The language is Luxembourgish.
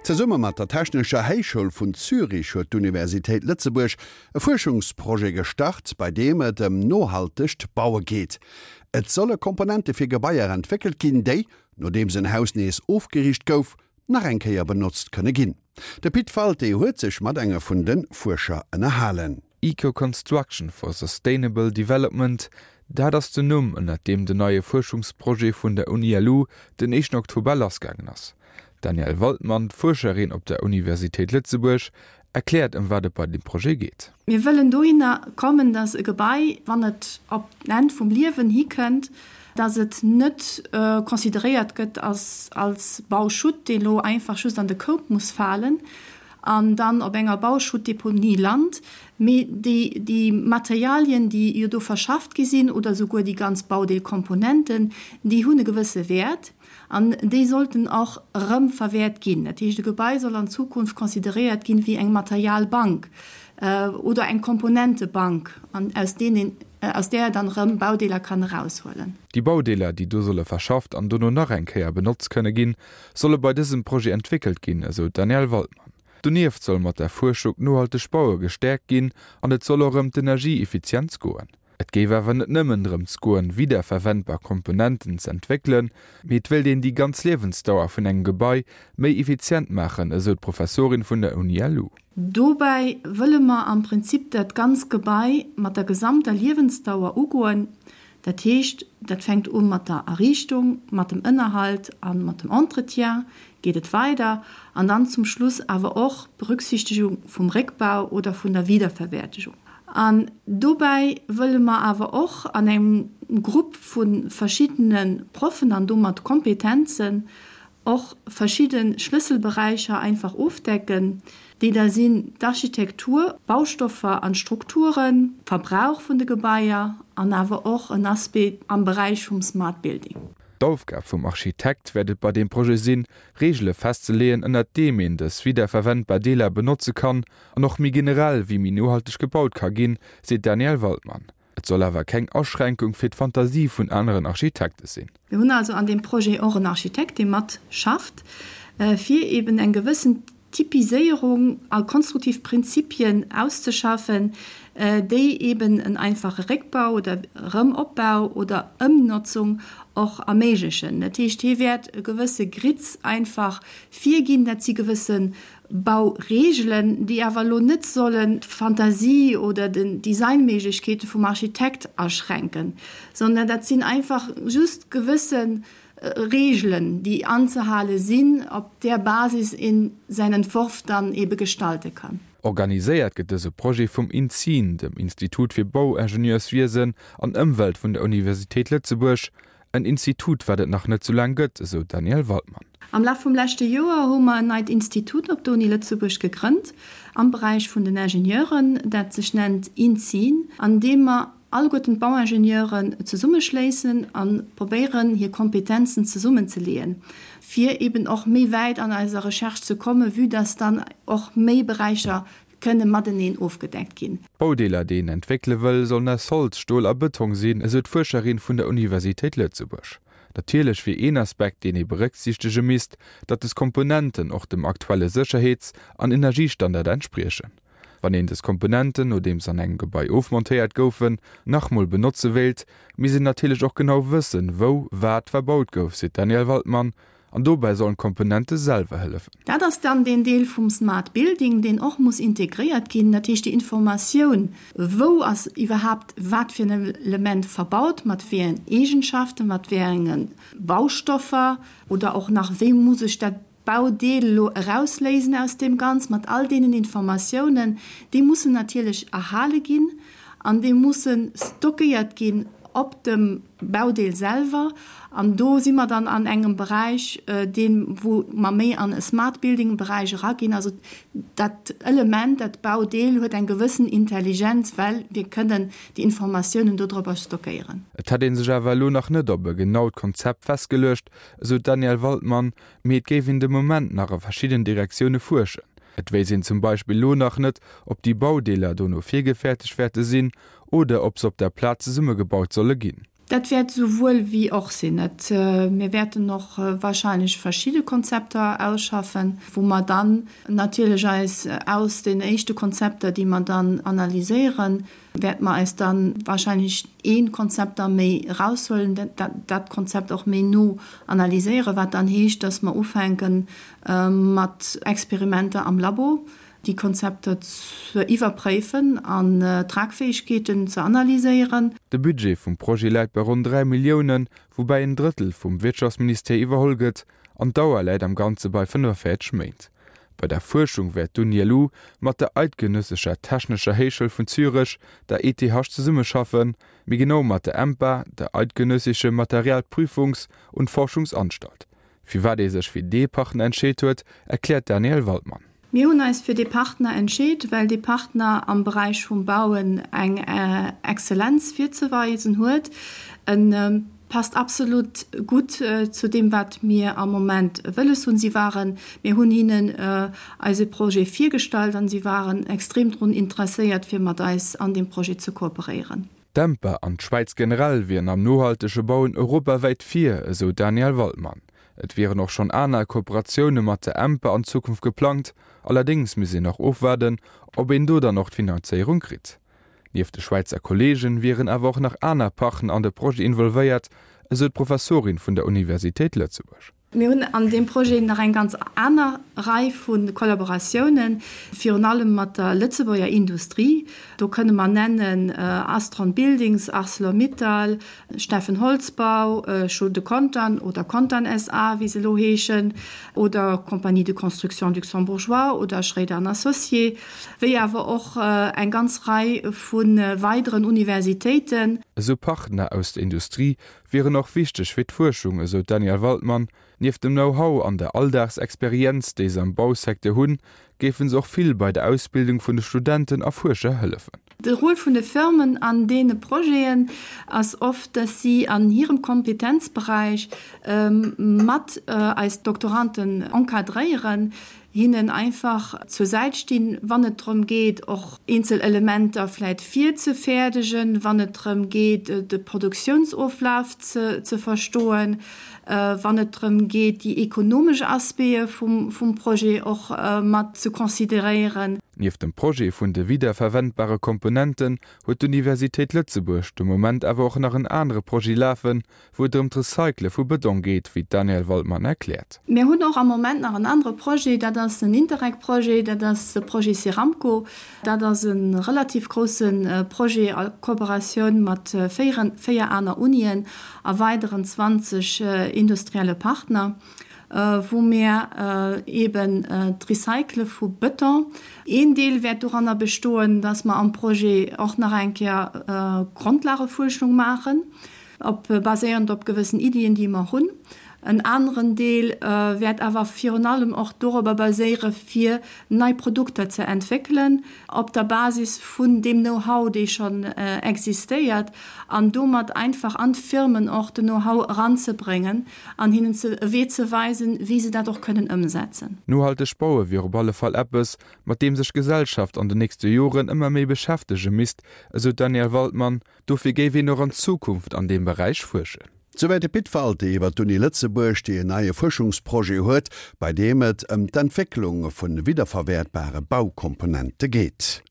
Zesumme mat der Technescher Héichschoul vun Zürich huet d'Universitéit Lëtzebuerg e Fuerschungsprojet gestart, bei deem et ëm nohaltegt Baue geet. Et solle Komponente fir Gebaier entwéckelt ginn, déi, nodeems en Haus nees ofgeriicht gouf, nach eng Kéier benotzt kënne ginn. De Pit Walté huet sech mat enge vun de Fuerscher ënnerhalen. Eco-Construction for Sustainable Development, dat ass den Numm, ënnert deem den neie Fuerschungsprojet vun der Uni-LU den éischten Oktober lassgaangen ass. D'Danièle Waldmann, Fuerscherin op der Universitéit Lëtzebuerg, erkläert ëm wat et bei deem Projet geet. Mir wëllen dohinner kommen, datt e Gebai, wann et op d'Enn vum Liewen hikënnt, datt et net consideréiert gëtt als Bauschutt, dee lo einfach just an de Koup muss falen an dann op enger Bauschuttdeponie lant, mee déi déi Materialien, déi jo do verschafft gi sinn, oder souguer déi ganz Baudeelkomponenten, déi hunn e gewësse Wäert. An déi sollten och erëm verwäert ginn. Dat heescht, e Gebai soll an Zukunft consideréiert ginn wéi eng Materialbank oder eng Komponentebank, aus deenen, aus där dann erëm Baudeeler kann eraushuelen. Déi Baudeeler, déi do solle verschafft an dono nach eng Kéier benotzt kënne ginn, solle bei dësem Projet entwéckelt ginn, esou d'Danièle Waldmann. Donieft soll mat der Fuerschung d'nohalteg Baue gestäerkt ginn an et soll och ëm d'Energieeffizienz goen. Et géif awer net nëmmen drëms goen, wiederverwendbar Komponenten z'entwéckelen, mee et wéilt een déi ganz Liewensdauer vun engem Gebai méi effizient maachen, esou d'Professorin vun der Uni-LU. Dobäi wëlle mer am Prinzip dat ganz Gebai mat der gesamter Liewensdauer ugoen. Dat heescht, dat fänkt u mat der Erriichtung, mat dem Ënnerhalt a mat dem Entretien geet et weider an dann zum Schluss awer och d'Berücksichtigung vum Réckbau oder vun der Wiederverwertegung. An dobäi wëlle mer awer och an engem Grupp vu verschiddene Proffen an domat Kompetenzen och verschidde Schlësselberäicher einfach ofdecken, déi da sinn d'Architektur, d'Baustoffer an d'Strukturen, Verbrauch vun de Gebaier an awer och en Aspect am Beräich vum Smart Building. D'Aufgab vum Architekt wäert et bei deem Projet sinn, Reegele festzeleeën, ënnert deem een dës wiederverwendbar Deeler benotze kann an och méi generell, wéi méi nohalteg gebaut ka ginn, seet d'Danièle Waldmann. Et soll awer keng Aschränkung fir d'Fantasie vun aneren Architekte sinn. Mir hunn also an deem Projet och en Architekt, dee mat schafft, fir eben eng gewëssen Typiséierung a konstruktiv Prinzipien auszeschaffen, déi eben en einfache Réckbau oder Erëmopbau oder Ëmnotzung och erméiglechen. Dat heescht, hie wäert e gewësse Grids einfach virginn, dat si gewësse Baureegelen, déi awer elo net sollen d'Fantasie oder den Designméiglechkeete vum Architekt aschränken, sondern dat sinn einfach just gewësse Reegelen, déi anzehale sinn, op där Basis een säin Entworf dann ebe gestalte kann. Organiséiert gëtt dëse Projet vum INSEEN, dem Institut fir Bauingenieurswiesen an Ëmwelt vun der Universitéit Lëtzebuerg, En Institut, wat et nach net sou laang gëtt, esou d'Danièle Waldmann. Am Laf vum leschte Joer hu mer en neit Institut op der Uni Lëtzebuerg gegrënnt am Beräich vun den Ingenieuren, dat sech nennt INSEEN, an deem mer alleguerten d'Bauingenieuren zesummeschléissen a probéieren, hir Kompetenzen zesummenzeleeën, fir eben och méi wäit an eiser Recherche ze kommen, vue dass dann och méi Beräicher kënne mateneen ofgedeckt ginn. D'Baudeeler, déi een entwéckele wëll, sollen aus Holz, Stol a Bëtong sinn, esou d'Fuerscherin vun der Universitéit Lëtzebuerg. Natierlech wier een Aspekt, deen ee berécksiichtege misst, datt des Komponenten och dem aktuelle Sécherheets an Energiestandard entspriechen. Wann een des Komponenten, nodeems an engem Gebai ofmontéiert goufen, nach mol benotze wéilt, misst een natierlech och genau wëssen, wou wat verbaut gouf, seet d'Danièle Waldmann. An dobäi sollen d'Komponente selwer hëllefen. Dat ass dann deen Deel vum Smart Building, deen och muss integréiert ginn, dat heescht déi Informatioun, wou ass iwwerhaapt wat fir en Element verbaut, mat wéi engen Eegenschaften, mat wéi enge Baustoffer oder och nach wéi muss ech dat Baudeel elo erausléisen aus deem Ganz, mat all deenen Informatiounen, déi mussen natierlech erhale ginn an déi musse stockéiert ginn op dem Baudeel selwer. An do si mer dann an engem Beräich, deen, wou mer méi an e Smart Building Beräich eraginn. Also dat Element, dat Baudeel huet eng gewëssen Intelligenz, well mir kënnen déi Informatiounen dodropper stockéieren. Et hätt ee sech awer elo nach net op e genaut Konzept festgeluecht, esou d'Danièle Waldmann, mee et géif een de Moment nach a verschidden Direktioune fuerschen. Et wéisst een zum Beispill elo nach net, ob déi Baudeeler dono virgefäertegt wäerte sinn oder ob se op der Plaz zesummegebaut solle ginn. Dat wäert esouwuel wéi och sinn. Et, mir wäerten och wahrscheinlech verschidde Konzepter ausschaffen, wou mer dann natierlech eis aus den éischte Konzepter, déi mer dann analyséieren, wäerte mer eis da wahrscheinlech ee Konzept da méi eraushuelen, dat dat Konzept och méi no analyséieren, wat dann heescht, dass mer ufänke mat Experimenter am Labo, déi Konzepter ze iwwerpréifen an d'Tragfäegkeeten ze analyséieren. De Budget vum Projet läit bei ronn 3 Milliounen, woubäi en Drëttel vum Wirtschaftsministère iwwerholl gëtt, an d'Dauer läit am Ganze bei 45 Méint. Bei der Fuerschung wäert d'UNILU mat der Eidgenössescher Technescher Héichschoul vun Zürech, der ETH, zesummeschaffen, méi genau mat der EMPA, der Eidgenössische Materialprüfungs und Forschungsanstalt. Firwat ee sech fir dee Partner entscheet huet, erkläert d'Danièle Waldmann. Mir hunn eis fir dee Partner entscheet, well dee Partner am Beräich vum Bauen eng Exzellenz virzeweisen huet. E passt absolut gutt zu deem, wat mir am Moment wëlles hunn. Si waren, mir hunn hinnen eise Projet virgestallt an si waren extrem drun interesséiert, fir mat eis an deem Projet ze kooperéieren. D'Empa an d'Schwäiz generell wieren am nohaltege Bauen europawäit vir, esou d'Danièle Waldmann. Et wieren och schonn aner Kooperatioune mat der Empa an Zukunft geplangt, allerdéngs misst een nach ofwaarden, ob een do dann och d'Finanzéierung kritt. Nieft de Schwäizer Kolleegen wieren awer och nach aner Partner an de Projet involvéiert, esou d'Professorin vun der Universitéit Lëtzebuerg. Mir hunn an deem Projet nach eng ganz aner Rei vu Kollaboratiounen, virun allem mat der Lëtzebuerger Industrie. Do kënne mer nennen Astron Buildings, Arcelor-Mittal, Steffen Holzbau, Schulde Contern oder Contern SA. wéi se elo heeschen, oder Compagnie de Construction Luxembourgeois oder Schréider an Associés, wéi awer och eng ganz Rei vu weideren Universitéiten. Esou Partner aus der Industrie wieren och wichteg fir d'Fuerschung, esou d'Danièle Waldmann. Nieft dem Know-how an der Alldagsexperienz, déi se am Bausecteur hunn, géife se och vill bei der Ausbildung vun de Studenten a Fuerscher hëllefen. De Rôle vun de Firmen an deene Projeten ass oft, dass si an hirem Kompetenzberäich mat eis Doktoranden encadréieren, hinnen einfach zur Säit stinn, wann et drëm geet, och eenzel Elementer vläit virzefäerdegen, wann et drëm geet, de Produktiounsoflaf ze verstoen, wann et drëm geet, déi ekonomesch Aspecte vum Projet och mat ze consideréieren. Nieft dem Projet vun de wiederverwendbare Komponenten huet d'Universitéit Lëtzebuerg de Moment awer och nach en anere Projet lafen, wou et ëm d'Recycle vu Bëtong geet, wéi d'Danièle Waldmann erkläert. Mir hunn och am Moment nach en anere Projet, dat ass en Interreg-Projet, dat ass de Projet Ceramco. Dat ass e relativ grousse Projet a Kooperatioun mat 4 aner Unien a weideren 20 industrielle Partner, wou mir eeben d'Recycle vu Bëton, een Deel wäert doranner bestoen, dass mer am Projet och nach eng Kéier Grondlagefuerschung maachen, Op baséierend op gewëssen Iddien, déi mer hunn. En aneren Deel wäert awer virun allem och dorobber baséiere fir nei Produkter ze entwéckelen op der Basis vun deem Know-how, dee schonn existéiert, an domat einfach an d'Firmen och den Know-how eranzebréngen an hinnen ze e Wee ze weisen, wéi se dat och kënnen ëmsetzen. Nohalteg baue wier op alle Fall eppes, mat deem sech d'Gesellschaft an den nächste Joren ëmmer méi beschäftege misst, esou d'Danièle Waldmann. Dofir géif een och an Zukunft an deem Beräich fuerschen. Souwäit de Pit Walté iwwer d'Uni Lëtzebuerg, déi en neie Fuerschungsprojet huet, bei deem et ëm d'Entwécklung vu widderverwäertbare Baukomponente geet.